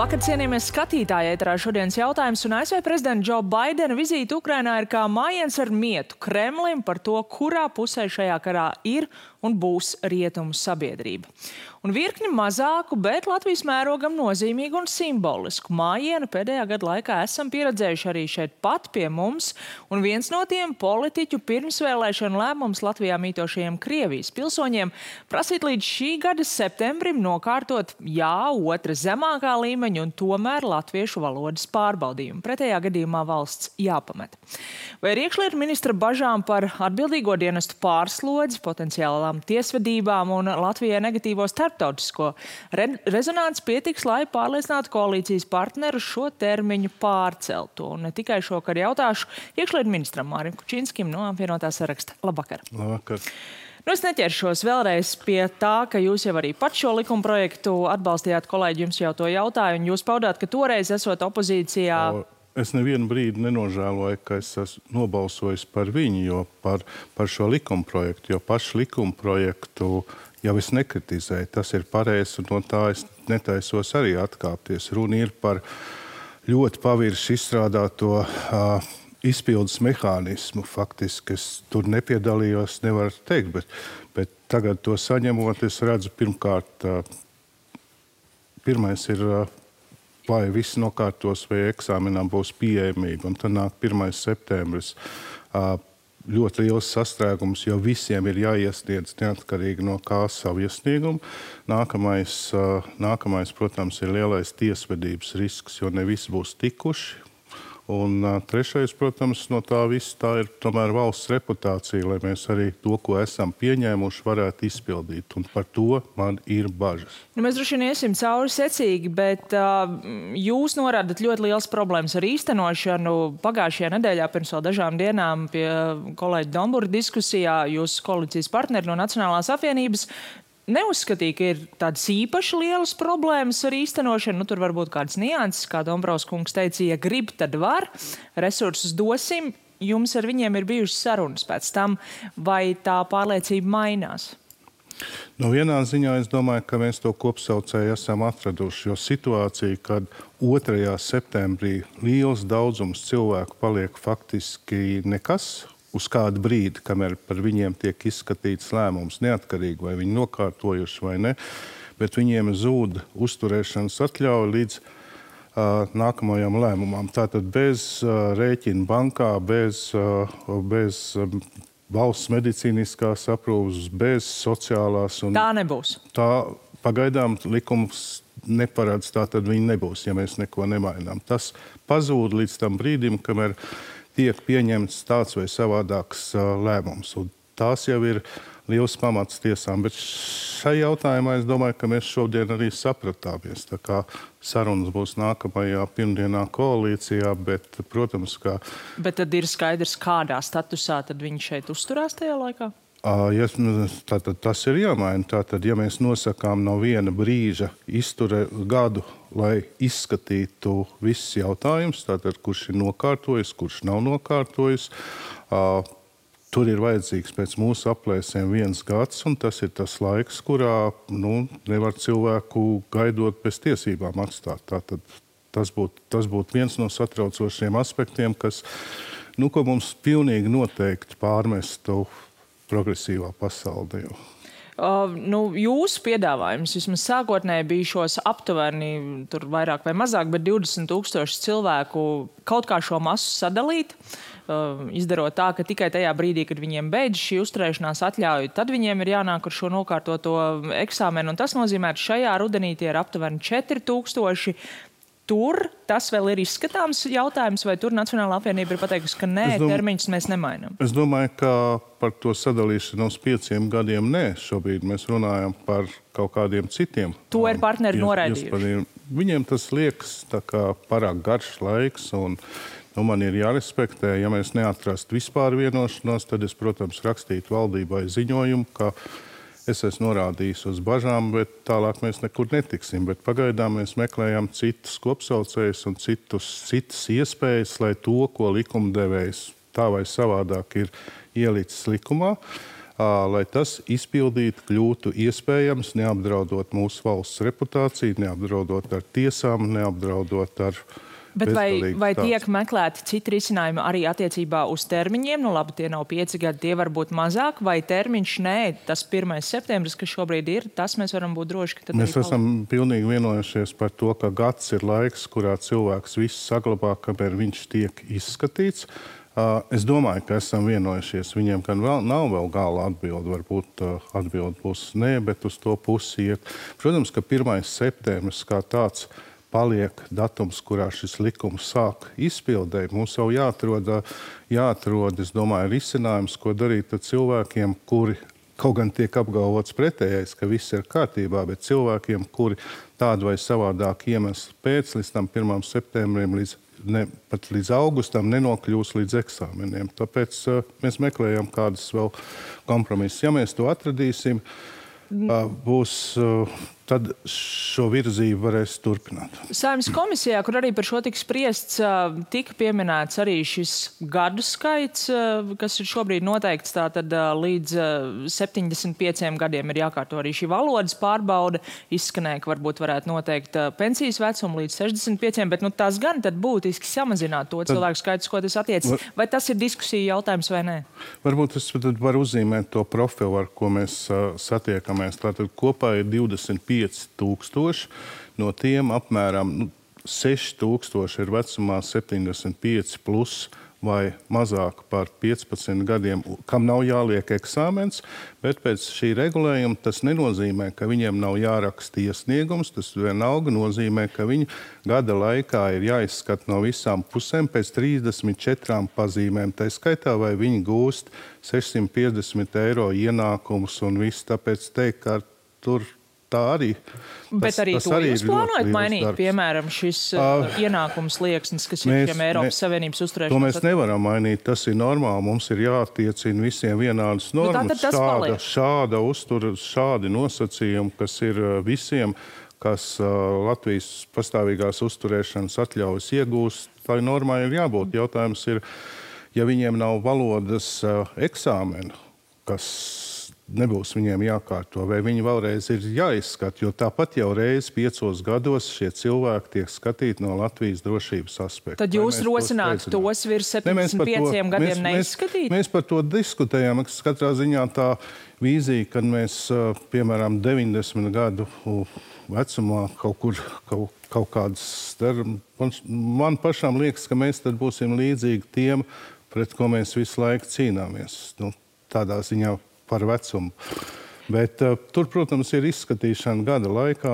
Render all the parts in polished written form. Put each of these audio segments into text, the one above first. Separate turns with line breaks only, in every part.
Labvakar, cienījamies skatītāji, ēterā šodienas jautājums, un ASV prezidenta Džo Baidena vizīte Ukrainā ir kā mājiens ar mietu Kremlim par to, kurā pusē šajā karā ir un būs rietumu sabiedrība. Un virkni mazāku, bet Latvijas mērogam nozīmīgu un simbolisku mājienu pēdējā gada laikā esam pieredzējuši arī šeit pat pie mums, un viens no tiem politiķu pirmsvēlēšanu lēmums Latvijā mītošajiem Krievijas pilsoņiem prasīt līdz šī gada septembrim nokārtot otra zemākā līmeņa un tomēr latviešu valodas pārbaudījumu. Pretējā gadījumā valsts jāpamet. Vai ar iekšlietu ministra bažām par atbildīgo dienestu pārslodzi, potenciālām tiesvedībām un Latvijai negatīvo starptautisko rezonanci pietiks, lai pārliecinātu koalīcijas partnerus šo termiņu pārcelt? Un ne tikai šokar jautāšu iekšlietu ministram Mārim Kučinskim no apvienotā saraksta. Labvakar!
Labvakar!
Es neķeršos vēlreiz pie tā, ka jūs jau arī pat šo likuma projektu atbalstījāt, kolēģi, jums jau to jautāju, un jūs paudāt, ka toreiz esot opozīcijā.
Es nevienu brīdi nenožēloju, ka es esmu nobalsojis par viņu, jo par šo likuma projektu, jo pašu likuma projektu jau es nekritizēju. Tas ir pareizi, un no tā es netaisos arī atkāpties. Runa ir par ļoti pavirši izstrādāto izpildes mehānismu. Faktiski es tur nepiedalījos, nevaru teikt, bet tagad to saņemot, es redzu pirmkārt, pirmais ir, vai viss nokārtos, vai eksāmenām būs pieejamība, un tad nāk 1. septembris. Ļoti liels sastrēgums, jo visiem ir jāiesniedz neatkarīgi no kā savu iesniegumu. Nākamais, protams, ir lielais tiesvedības risks, jo ne visi būs tikuši. Un trešais, protams, no tā viss tā ir tomēr valsts reputācija, lai mēs arī to, ko esam pieņēmuši, varētu izpildīt. Un par to man ir bažas.
Mēs droši vien iesim cauri secīgi, bet jūs norādat ļoti liels problēmas ar īstenošanu. Pagājušajā nedēļā pirms vēl dažām dienām pie kolēģa Dombura diskusijā jūsu koalīcijas partneri no Nacionālās apvienības neuzskatīja, ka ir tādas īpaši lielas problēmas ar īstenošanu. Tur var būt kādas nianses, kā Dombrovs kungs teica, ja grib, tad var. Resursus dosim. Jums ar viņiem ir bijušas sarunas pēc tam, vai tā pārliecība mainās?
No vienā ziņā es domāju, ka mēs to kopsaucēju esam atraduši, jo situācija, kad 2. septembrī liels daudzums cilvēku paliek faktiski nekas, uz kādu brīdi, kamēr par viņiem tiek izskatīts lēmums, neatkarīgi vai viņi nokārtojuši vai ne, bet viņiem zūd uzturēšanas atļauja līdz nākamajam lēmumam. Tātad bez rēķina bankā, bez valsts medicīniskās aprūpes, bez sociālās.
Tā nebūs.
Tā pagaidām likums neparedz, tā tad viņi nebūs, ja mēs neko nemainām. Tas pazūd līdz tam brīdim, kamēr tiek pieņemts tāds vai savādāks lēmums. Un tās jau ir liels pamats tiesām. Bet šai jautājumā es domāju, ka mēs šodien arī sapratāmies. Tā kā sarunas būs nākamajā pirmdienā koalīcijā, bet, protams, ka...
Bet tad ir skaidrs, kādā statusā tad viņi šeit uzturās tajā laikā?
Tātad tas ir jāmaina. Tātad, ja mēs nosakām no viena brīža gadu, lai izskatītu visus jautājumus, tātad kurš ir nokārtojis, kurš nav nokārtojis, tur ir vajadzīgs pēc mūsu aplēsēm 1 gads, un tas ir tas laiks, kurā nevar cilvēku gaidot bez tiesībām atstāt. Tātad tas būtu viens no satraucošiem aspektiem, kas, ko mums pilnīgi noteikti pārmestu progresīvā pasaulē.
Jūsu piedāvājums vismaz sākotnēji bija šos aptuveni, tur vairāk vai mazāk, bet 20,000 cilvēku kaut kā šo masu sadalīt, izdarot tā, ka tikai tajā brīdī, kad viņiem beidz šī uzturēšanās atļauja, tad viņiem ir jānāk ar šo nokārtoto eksāmenu, un tas nozīmē, ka šajā rudenī tie ir aptuveni 4,000. Tur tas vēl ir izskatāms jautājums, vai tur Nacionālā apvienība ir pateikusi, ka nē, termiņus mēs nemainām?
Es domāju, ka par to sadalīšanu uz 5 gadiem nē. Šobrīd mēs runājam par kaut kādiem citiem.
To ir partneri noraidījuši.
Viņiem tas liekas tā kā pārāk garš laiks, un man ir jārespektē. Ja mēs neatrastu vispār vienošanos, tad es, protams, rakstītu valdībai ziņojumu, ka es esmu norādījis uz bažām, bet tālāk mēs nekur netiksim. Bet pagaidām mēs meklējam citus kopsaucējus un citas iespējas, lai to, ko likumdevējs tā vai savādāk ir ielicis likumā, lai tas izpildīt kļūtu iespējams, neapdraudot mūsu valsts reputāciju, neapdraudot ar tiesām, neapdraudot ar...
Bet vai tiek meklēti citi risinājumi arī attiecībā uz termiņiem? Nu labi, tie nav 5 gadi, tie var būt mazāk, vai termiņš nē, tas 1. septembris, kas šobrīd ir, tas mēs varam būt droši, ka tad
mēs esam pilnīgi vienojušies par to, ka gads ir laiks, kurā cilvēks visu saglabā, kamēr viņš tiek izskatīts. Es domāju, ka esam vienojušies. Viņiem gan nav vēl gala atbildi, varbūt atbildi būs nē, bet uz to pusi iet. Protams, ka 1. septembris kā tāds paliek datums, kurā šis likums sāk izpildēt. Mums jau jāatrod, es domāju, risinājums, ko darīt ar cilvēkiem, kuri kaut gan tiek apgalvots pretējais, ka viss ir kārtībā, bet cilvēkiem, kuri tādu vai savādāk iemeslu pēc līdz tam 1. septembrim, pat līdz augustam nenokļūs līdz eksāmeniem. Tāpēc mēs meklējam kādas vēl kompromisus. Ja mēs to atradīsim, tad šo virzību varēs turpināt.
Saeimas komisijā, kur arī par šo tika spriests, tika pieminēts arī šis gadu skaits, kas ir šobrīd noteikts, tātad līdz 75 gadiem ir jākārto arī šī valodas pārbaude. Izskanēja, ka varbūt varētu noteikt pensijas vecumu līdz 65, bet tas gan tad būtiski samazināt to cilvēku skaitu, ko tas attiecas. Vai tas ir diskusija jautājums vai nē?
Varbūt es varu uzzīmēt to profilu, ar ko mēs satiekamies. Tātad kopā ir 25 000, no tiem apmēram 6,000 ir vecumā 75 plus vai mazāk par 15 gadiem, kam nav jāliek eksāmens, bet pēc šī regulējuma tas nenozīmē, ka viņiem nav jāraksta iesniegums, tas vienalga nozīmē, ka viņi gada laikā ir jāizskata no visām pusēm pēc 34 pazīmēm, tā skaitā vai viņi gūst 650 eiro ienākumus un viss, tāpēc teikt, ka tur tā arī.
Bet arī to jūs plānojat mainīt, piemēram, šis ienākums slieksnis, kas ir šiem Eiropas Savienības uzturēšanas?
To mēs nevaram mainīt, tas ir normāli. Mums ir jāattiecina visiem vienādas normas. Šādi nosacījumi, kas ir visiem, kas Latvijas pastāvīgās uzturēšanas atļaujas iegūst, tai normai ir jābūt. Jautājums ir, ja viņiem nav valodas eksāmenu, kas nebūs viņiem jākārto, vai viņi vēlreiz ir jāizskata, jo tāpat jau reiz 5 gados šie cilvēki tiek skatīti no Latvijas drošības aspekta.
Tad jūs rosinātu tos virs 75 gadiem neizskatīt?
Mēs par to diskutējām. Katrā ziņā tā vīzija, kad mēs, piemēram, 90 gadu vecumā kaut kādas... Man pašām liekas, ka mēs tad būsim līdzīgi tiem, pret ko mēs visu laiku cīnāmies. Tādā ziņā par vecumu. Bet tur, protams, ir izskatīšana gada laikā.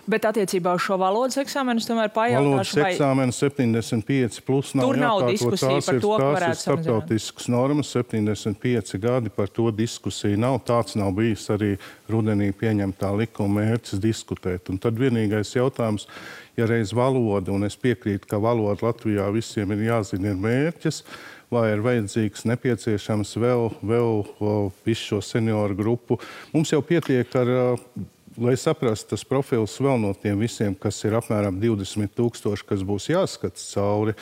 Bet attiecībā uz šo valodas eksāmenus tomēr pajautāšu,
valodas eksāmenu 75 plus nav
tur nav
jākārto.
Diskusija par to, ka varētu
samazināt. Tās ir starptautiskas normas, 75 gadi, par to diskusija nav. Tāds nav bijis arī rudenī pieņemtā likuma mērķis diskutēt. Un tad vienīgais jautājums, ja reiz valoda, un es piekrītu, ka valoda Latvijā visiem ir jāzina ir mērķis, vai ir vajadzīgs, nepieciešams vēl visu šo senioru grupu. Mums jau pietiek ar, lai saprastu tas profils vēl no tiem visiem, kas ir apmēram 20 000, kas būs jāskats cauri.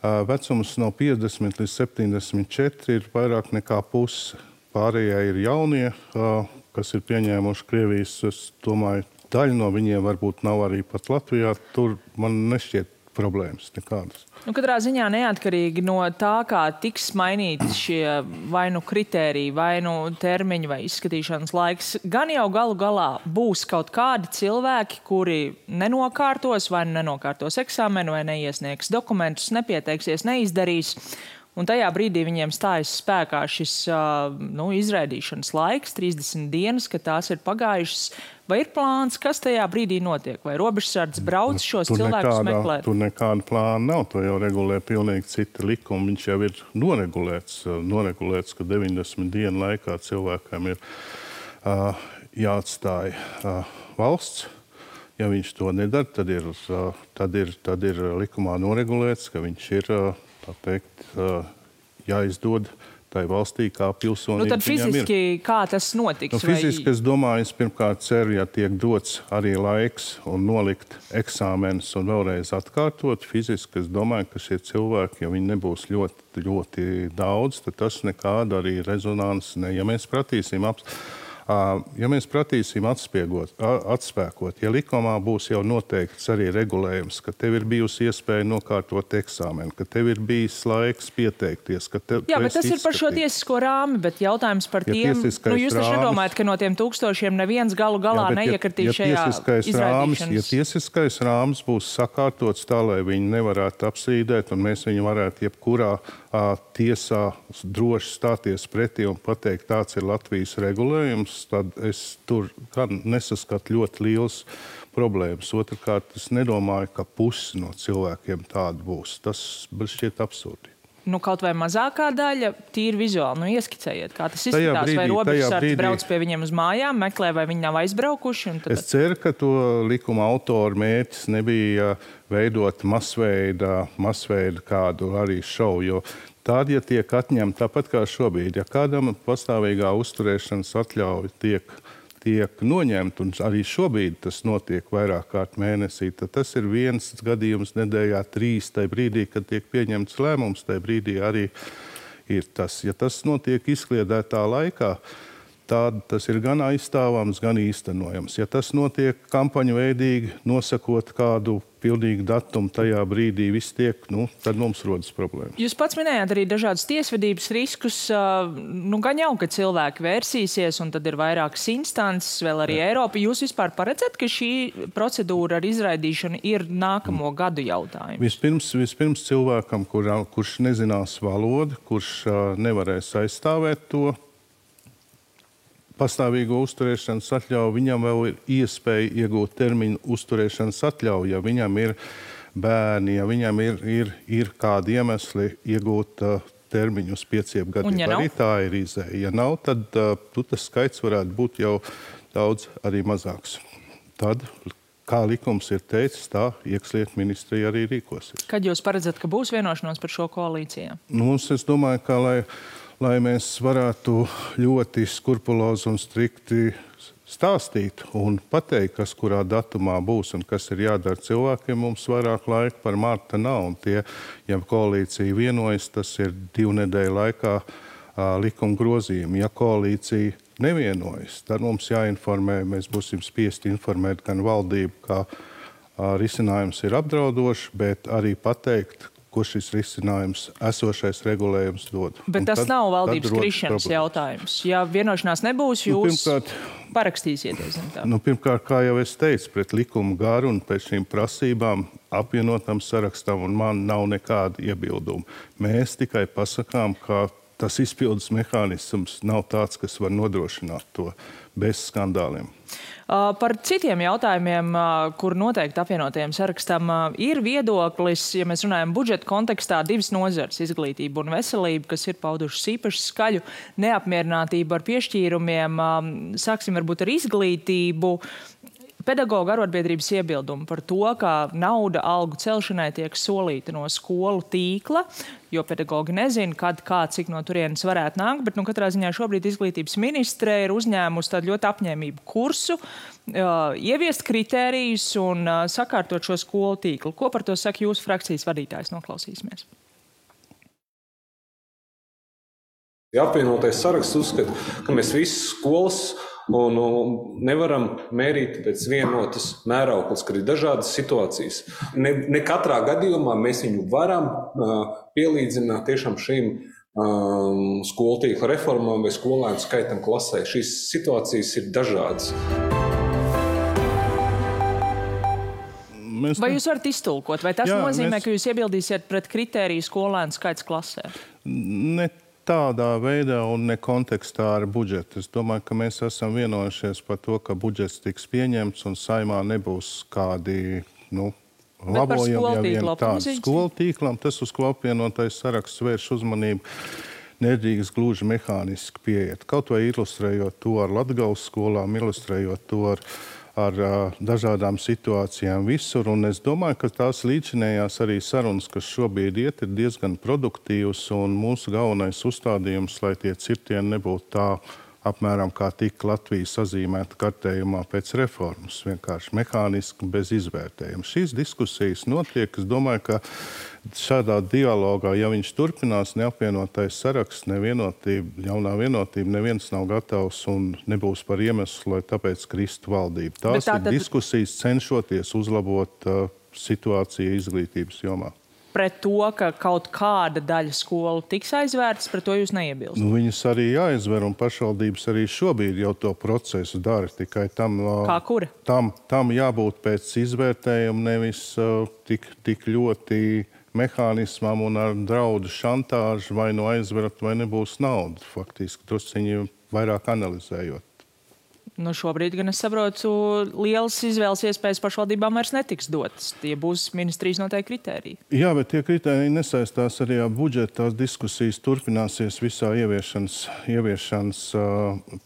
Vecums no 50 līdz 74 ir vairāk nekā pusi. Pārējie ir jaunie, kas ir pieņēmuši Krievijas. Es domāju, daļa no viņiem varbūt nav arī pat Latvijā. Tur man nešķiet problēmas nekādas.
Katrā ziņā neatkarīgi no tā, kā tiks mainīti šie vai nu kritēriji, vai nu termiņi, vai izskatīšanas laiks, gan jau galu galā būs kaut kādi cilvēki, kuri nenokārtos, vai nenokārtos eksāmenu, vai neiesniegs dokumentus, nepieteiksies, neizdarīs. Un tajā brīdī viņiem stājas spēkā šis izraidīšanas laiks, 30 dienas, kad tās ir pagājušas. Vai ir plāns, kas tajā brīdī notiek? Vai robežsardze brauc šos cilvēkus meklēt?
Tur nekāda plāna nav. To jau regulē pilnīgi cita likuma. Viņš jau ir noregulēts, ka 90 dienu laikā cilvēkam ir jāatstāja valsts. Ja viņš to nedara, tad ir likumā noregulēts, ka viņš ir, tā teikt, jāizdod tai valstī, kā pilsonība
tad fiziski kā tas notiks?
Fiziski, es domāju, es pirmkārt ceru, ja tiek dots arī laiks un nolikt eksāmenus un vēlreiz atkārtot. Fiziski, es domāju, ka šie cilvēki, ja viņi nebūs ļoti, ļoti daudz, tad tas nekāda arī rezonanses ne. Ja mēs pratīsim atspēkot, ja likumā būs jau noteikts arī regulējums, ka tev ir bijusi iespēja nokārtot eksāmenu, ka tev ir bijis laiks pieteikties, ka tev
Jā, bet tas ir par šo tiesisko rāmi, bet jautājums par tiem, jūs taču nedomājat, ka no tiem tūkstošiem neviens galu galā neiekritīs šajā izraidīšanas.
Ja tiesiskais rāms būs sakārtots tā, lai viņi nevarētu apstrīdēt, un mēs viņu varētu jebkurā tiesā droši stāties pretī un pateikt, tāds ir Latvijas regulējums, tad es tur nesaskatu ļoti liels problēmas. Otrkārt, es nedomāju, ka pusi no cilvēkiem tāda būs. Tas šķiet absurdi.
Kaut vai mazākā daļa, tīri vizuāli, ieskicējiet, kā tas izskatās, vai robežsardze brauc pie viņiem uz mājām, meklē, vai viņi nav aizbraukuši.
Es ceru, ka to likuma autoru mērķis nebija veidot masveida kādu arī šovu, jo tad, ja tiek atņemta tāpat kā šobrīd, ja kādam pastāvīgā uzturēšanas atļauja tiek noņemta, un arī šobrīd tas notiek vairāk kārt mēnesī, tad tas ir viens gadījums nedēļā, 3 tajā brīdī, kad tiek pieņemts lēmums, tajā brīdī arī ir tas. Ja tas notiek izkliedētā laikā, tad tas ir gan aizstāvams, gan īstenojams. Ja tas notiek kampaņu veidīgi, nosakot kādu pilnīgu datumu tajā brīdī, viss tiek, tad mums rodas problēmas.
Jūs pats minējāt arī dažādas tiesvedības riskus. Gan jau, ka cilvēki vērsīsies, un tad ir vairākas instances, vēl arī Eiropa. Jūs vispār paredzat, ka šī procedūra ar izraidīšanu ir nākamo gadu jautājums?
Vispirms cilvēkam, kurš nezinās valodu, kurš nevarēs aizstāvēt to pastāvīgo uzturēšanas atļauju, viņam vēl ir iespēja iegūt termiņu uzturēšanas atļauju, ja viņam ir bērni, ja viņam ir kādi iemesli iegūt termiņu uz 5 gadiem. Arī tā ir izēja. Ja nav, tad tas skaits varētu būt jau daudz arī mazāks. Tad, kā likums ir teicis, tā iekšlietu ministrija arī rīkosies.
Kad jūs paredzat, ka būs vienošanos par šo koalīcijā?
Es domāju, ka lai mēs varētu ļoti skrupulozi un strikti stāstīt un pateikt, kas kurā datumā būs un kas ir jādara cilvēkiem, mums vairāk laika par marta nav. Un ja koalīcija vienojas, tas ir 2 nedēļu laikā likuma grozījumi. Ja koalīcija nevienojas, tad mums jāinformē, mēs būsim spiesti informēt gan valdību, ka risinājums ir apdraudošs, bet arī pateikt, ko šis risinājums, esošais regulējums dod.
Bet tas nav valdības krišanas jautājums. Ja vienošanās nebūs, jūs parakstīsieties.
Pirmkārt, kā jau es teicu, pret likumu garu un pēc šīm prasībām apvienotam sarakstam, un man nav nekāda iebilduma. Mēs tikai pasakām, ka tas izpildes mehānisms nav tāds, kas var nodrošināt to bez skandāliem.
Par citiem jautājumiem, kur noteikti apvienotajiem sarakstam ir viedoklis, ja mēs runājam budžeta kontekstā, 2 nozares, izglītība un veselība, kas ir paudušas īpaši skaļu neapmierinātību ar piešķīrumiem. Sāksim varbūt ar izglītību. Pedagoģu arotbiedrības iebildumu par to, ka nauda algu celšanai tiek solīta no skolu tīkla, jo pedagoģi nezina, kad, kā, cik no turienes varētu nākt, bet katrā ziņā šobrīd izglītības ministre ir uzņēmusi tādu ļoti apņēmību kursu, ieviest kritērijus un sakārtot šo skolu tīklu. Ko par to saka jūsu frakcijas vadītājs? Noklausīsimies.
Apvienotais saraksts uzskata, ka mēs visas skolas un nevaram mērīt pēc vienotas mērauklas, kad ir dažādas situācijas. Ne katrā gadījumā mēs viņu varam pielīdzināt tiešām šīm skolu tīkla reformām vai skolēnu skaitam klasē. Šīs situācijas ir dažādas.
Vai jūs varat iztulkot? Vai tas nozīmē, ka jūs iebildīsiet pret kritēriju skolēnu skaits klasē?
Ne tādā veidā un ne kontekstā ar budžetu. Es domāju, ka mēs esam vienojušies par to, ka budžets tiks pieņemts un saimā nebūs kādi labojumi, ja vien tādi. Skolu tīklam, tas, uz ko apvienotais saraksts vērš uzmanību, nedrīkst gluži mehāniski pieiet. Kaut vai ilustrējot to ar Latgales skolām, ilustrējot to ar ar dažādām situācijām visur. Un es domāju, ka tās līdzinējās arī sarunas, kas šobrīd iet, ir diezgan produktīvas. Un mūsu galvenais uzstādījums, lai tie cirtieni nebūtu tā apmēram kā tika Latvija sazīmēta kartējumā pēc reformas, vienkārši mehāniski bez izvērtējuma. Šīs diskusijas notiek. Es domāju, ka šādā dialogā, ja viņš turpinās, neapvienotais saraksts, nevienotība, jaunā vienotība, neviens nav gatavs un nebūs par iemeslu, lai tāpēc kristu valdība. Tās ir diskusijas cenšoties uzlabot situāciju izglītības jomā.
Pret to, ka kaut kāda daļa skolu tiks aizvērtas, pret to jūs neiebilst?
Viņas arī jāizver, un pašvaldības arī šobrīd jau to procesu dara. Tikai tam,
kā kura?
Tam jābūt pēc izvērtējuma, nevis tik ļoti mehānismam un ar draudu šantāžu vai nu aizverat, vai nebūs nauda. Faktiski drusciņi vairāk analizējot.
Šobrīd, gan es saprotu, lielas izvēles iespējas pašvaldībām vairs netiks dotas. Tie būs ministrijas noteikti kritēriji.
Jā, bet tie kritēriji nesaistās arī ar budžetu. Tās diskusijas turpināsies visā ieviešanas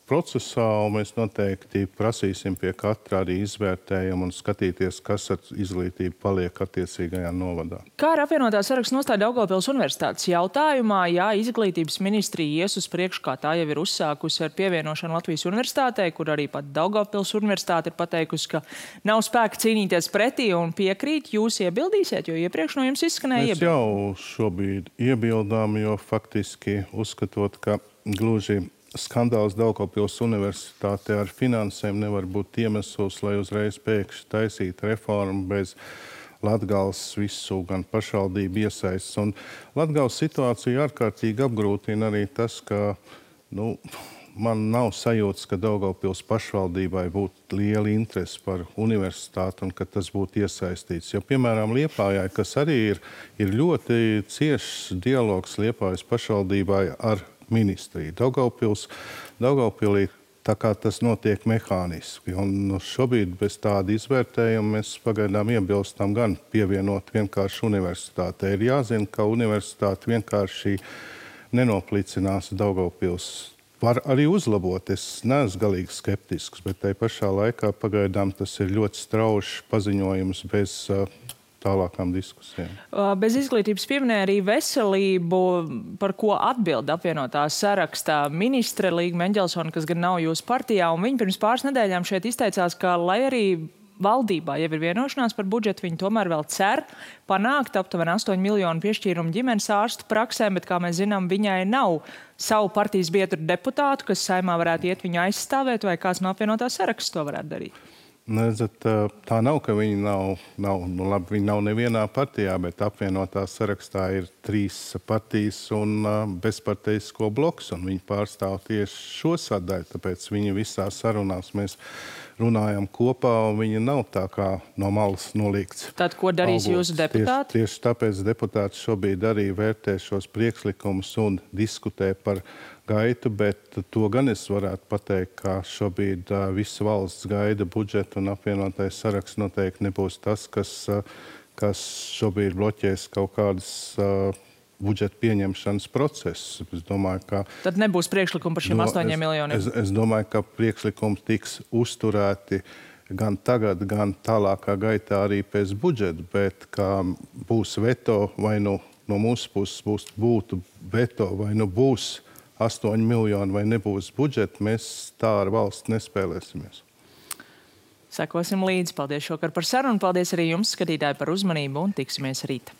procesā, un mēs noteikti prasīsim pie katra arī izvērtējumu un skatīties, kas ar izglītību paliek attiecīgajā novadā.
Kā ar apvienotā saraksta nostāja Daugavpils Universitātes jautājumā, ja izglītības ministrija ies uz priekšu, kā tā jau ir uzsākusi ar pievienošanu Latvijas universitātei, kur arī pat Daugavpils Universitāte ir pateikusi, ka nav spēka cīnīties pretī un piekrīt, jūs iebildīsiet, jo iepriekš no jums izskanēja
iebildi. Mēs jau šobrīd iebildām, jo faktiski uzskatot, ka gluži skandāls Daugavpils Universitāte ar finansēm nevar būt iemesls, lai uzreiz pēkšņi taisītu reformu bez Latgales visu gan pašvaldību iesaists. Un Latgales situāciju ārkārtīgi apgrūtina arī tas, ka, man nav sajūtas, ka Daugavpils pašvaldībai būtu liela interese par universitāti un ka tas būtu iesaistīts. Jo, piemēram, Liepājai, kas arī ir ļoti ciešs dialogs Liepājas pašvaldībai ar ministriju. Daugavpilī tā kā tas notiek mehāniski. Un šobrīd bez tāda izvērtējuma mēs pagaidām iebilstam gan pievienot vienkārši universitātei. Ir jāzina, ka universitāte vienkārši nenoplicinās Daugavpils. Var arī uzlabot. Es neesmu galīgi skeptisks, bet tai pašā laikā pagaidām tas ir ļoti straušs paziņojums bez tālākām diskusijām.
Bez izglītības pieminēja arī veselību, par ko atbild apvienotā sarakstā ministre Līga Meņģelsone, kas gan nav jūsu partijā, un viņa pirms pāris nedēļām šeit izteicās, ka, lai arī valdībā jau ir vienošanās par budžetu, viņi tomēr vēl cer panākt aptuveni 8 miljonu piešķīrumu ģimenes ārstu praksēm, bet, kā mēs zinām, viņai nav savu partijas biedru deputātu, kas saimā varētu iet viņu aizstāvēt, vai kāds no apvienotā saraksta to varētu darīt?
Tā nav, ka viņi viņi nav nevienā partijā, bet apvienotā sarakstā ir 3 partijas un bezparteisko bloks, un viņi pārstāv tieši šo sadaļu, tāpēc viņi visās sarunās mēs runājam kopā, un viņi nav tā kā no malas nolīgts.
Tad, ko darīs jūsu deputāti?
Tieši tāpēc deputāti šobrīd arī vērtē šos priekšlikumus un diskutē par gaitu, bet to gan es varētu pateikt, ka šobrīd visa valsts gaida budžetu, un apvienotais saraksts noteikti nebūs tas, kas šobrīd bloķēs kaut kādas budžeta pieņemšanas procesus. Es domāju, ka
tad nebūs priekšlikumi par šiem 8 miljoniem?
Es domāju, ka priekšlikumi tiks uzturēti gan tagad, gan tālākā gaitā arī pēc budžeta, bet kā būs veto, vai no mūsu puses būtu veto, vai būs 8 miljoni, vai nebūs budžeta, mēs tā ar valsts nespēlēsimies.
Sekosim līdzi. Paldies šokar par sarunu. Paldies arī jums, skatītāji, par uzmanību, un tiksimies rīt.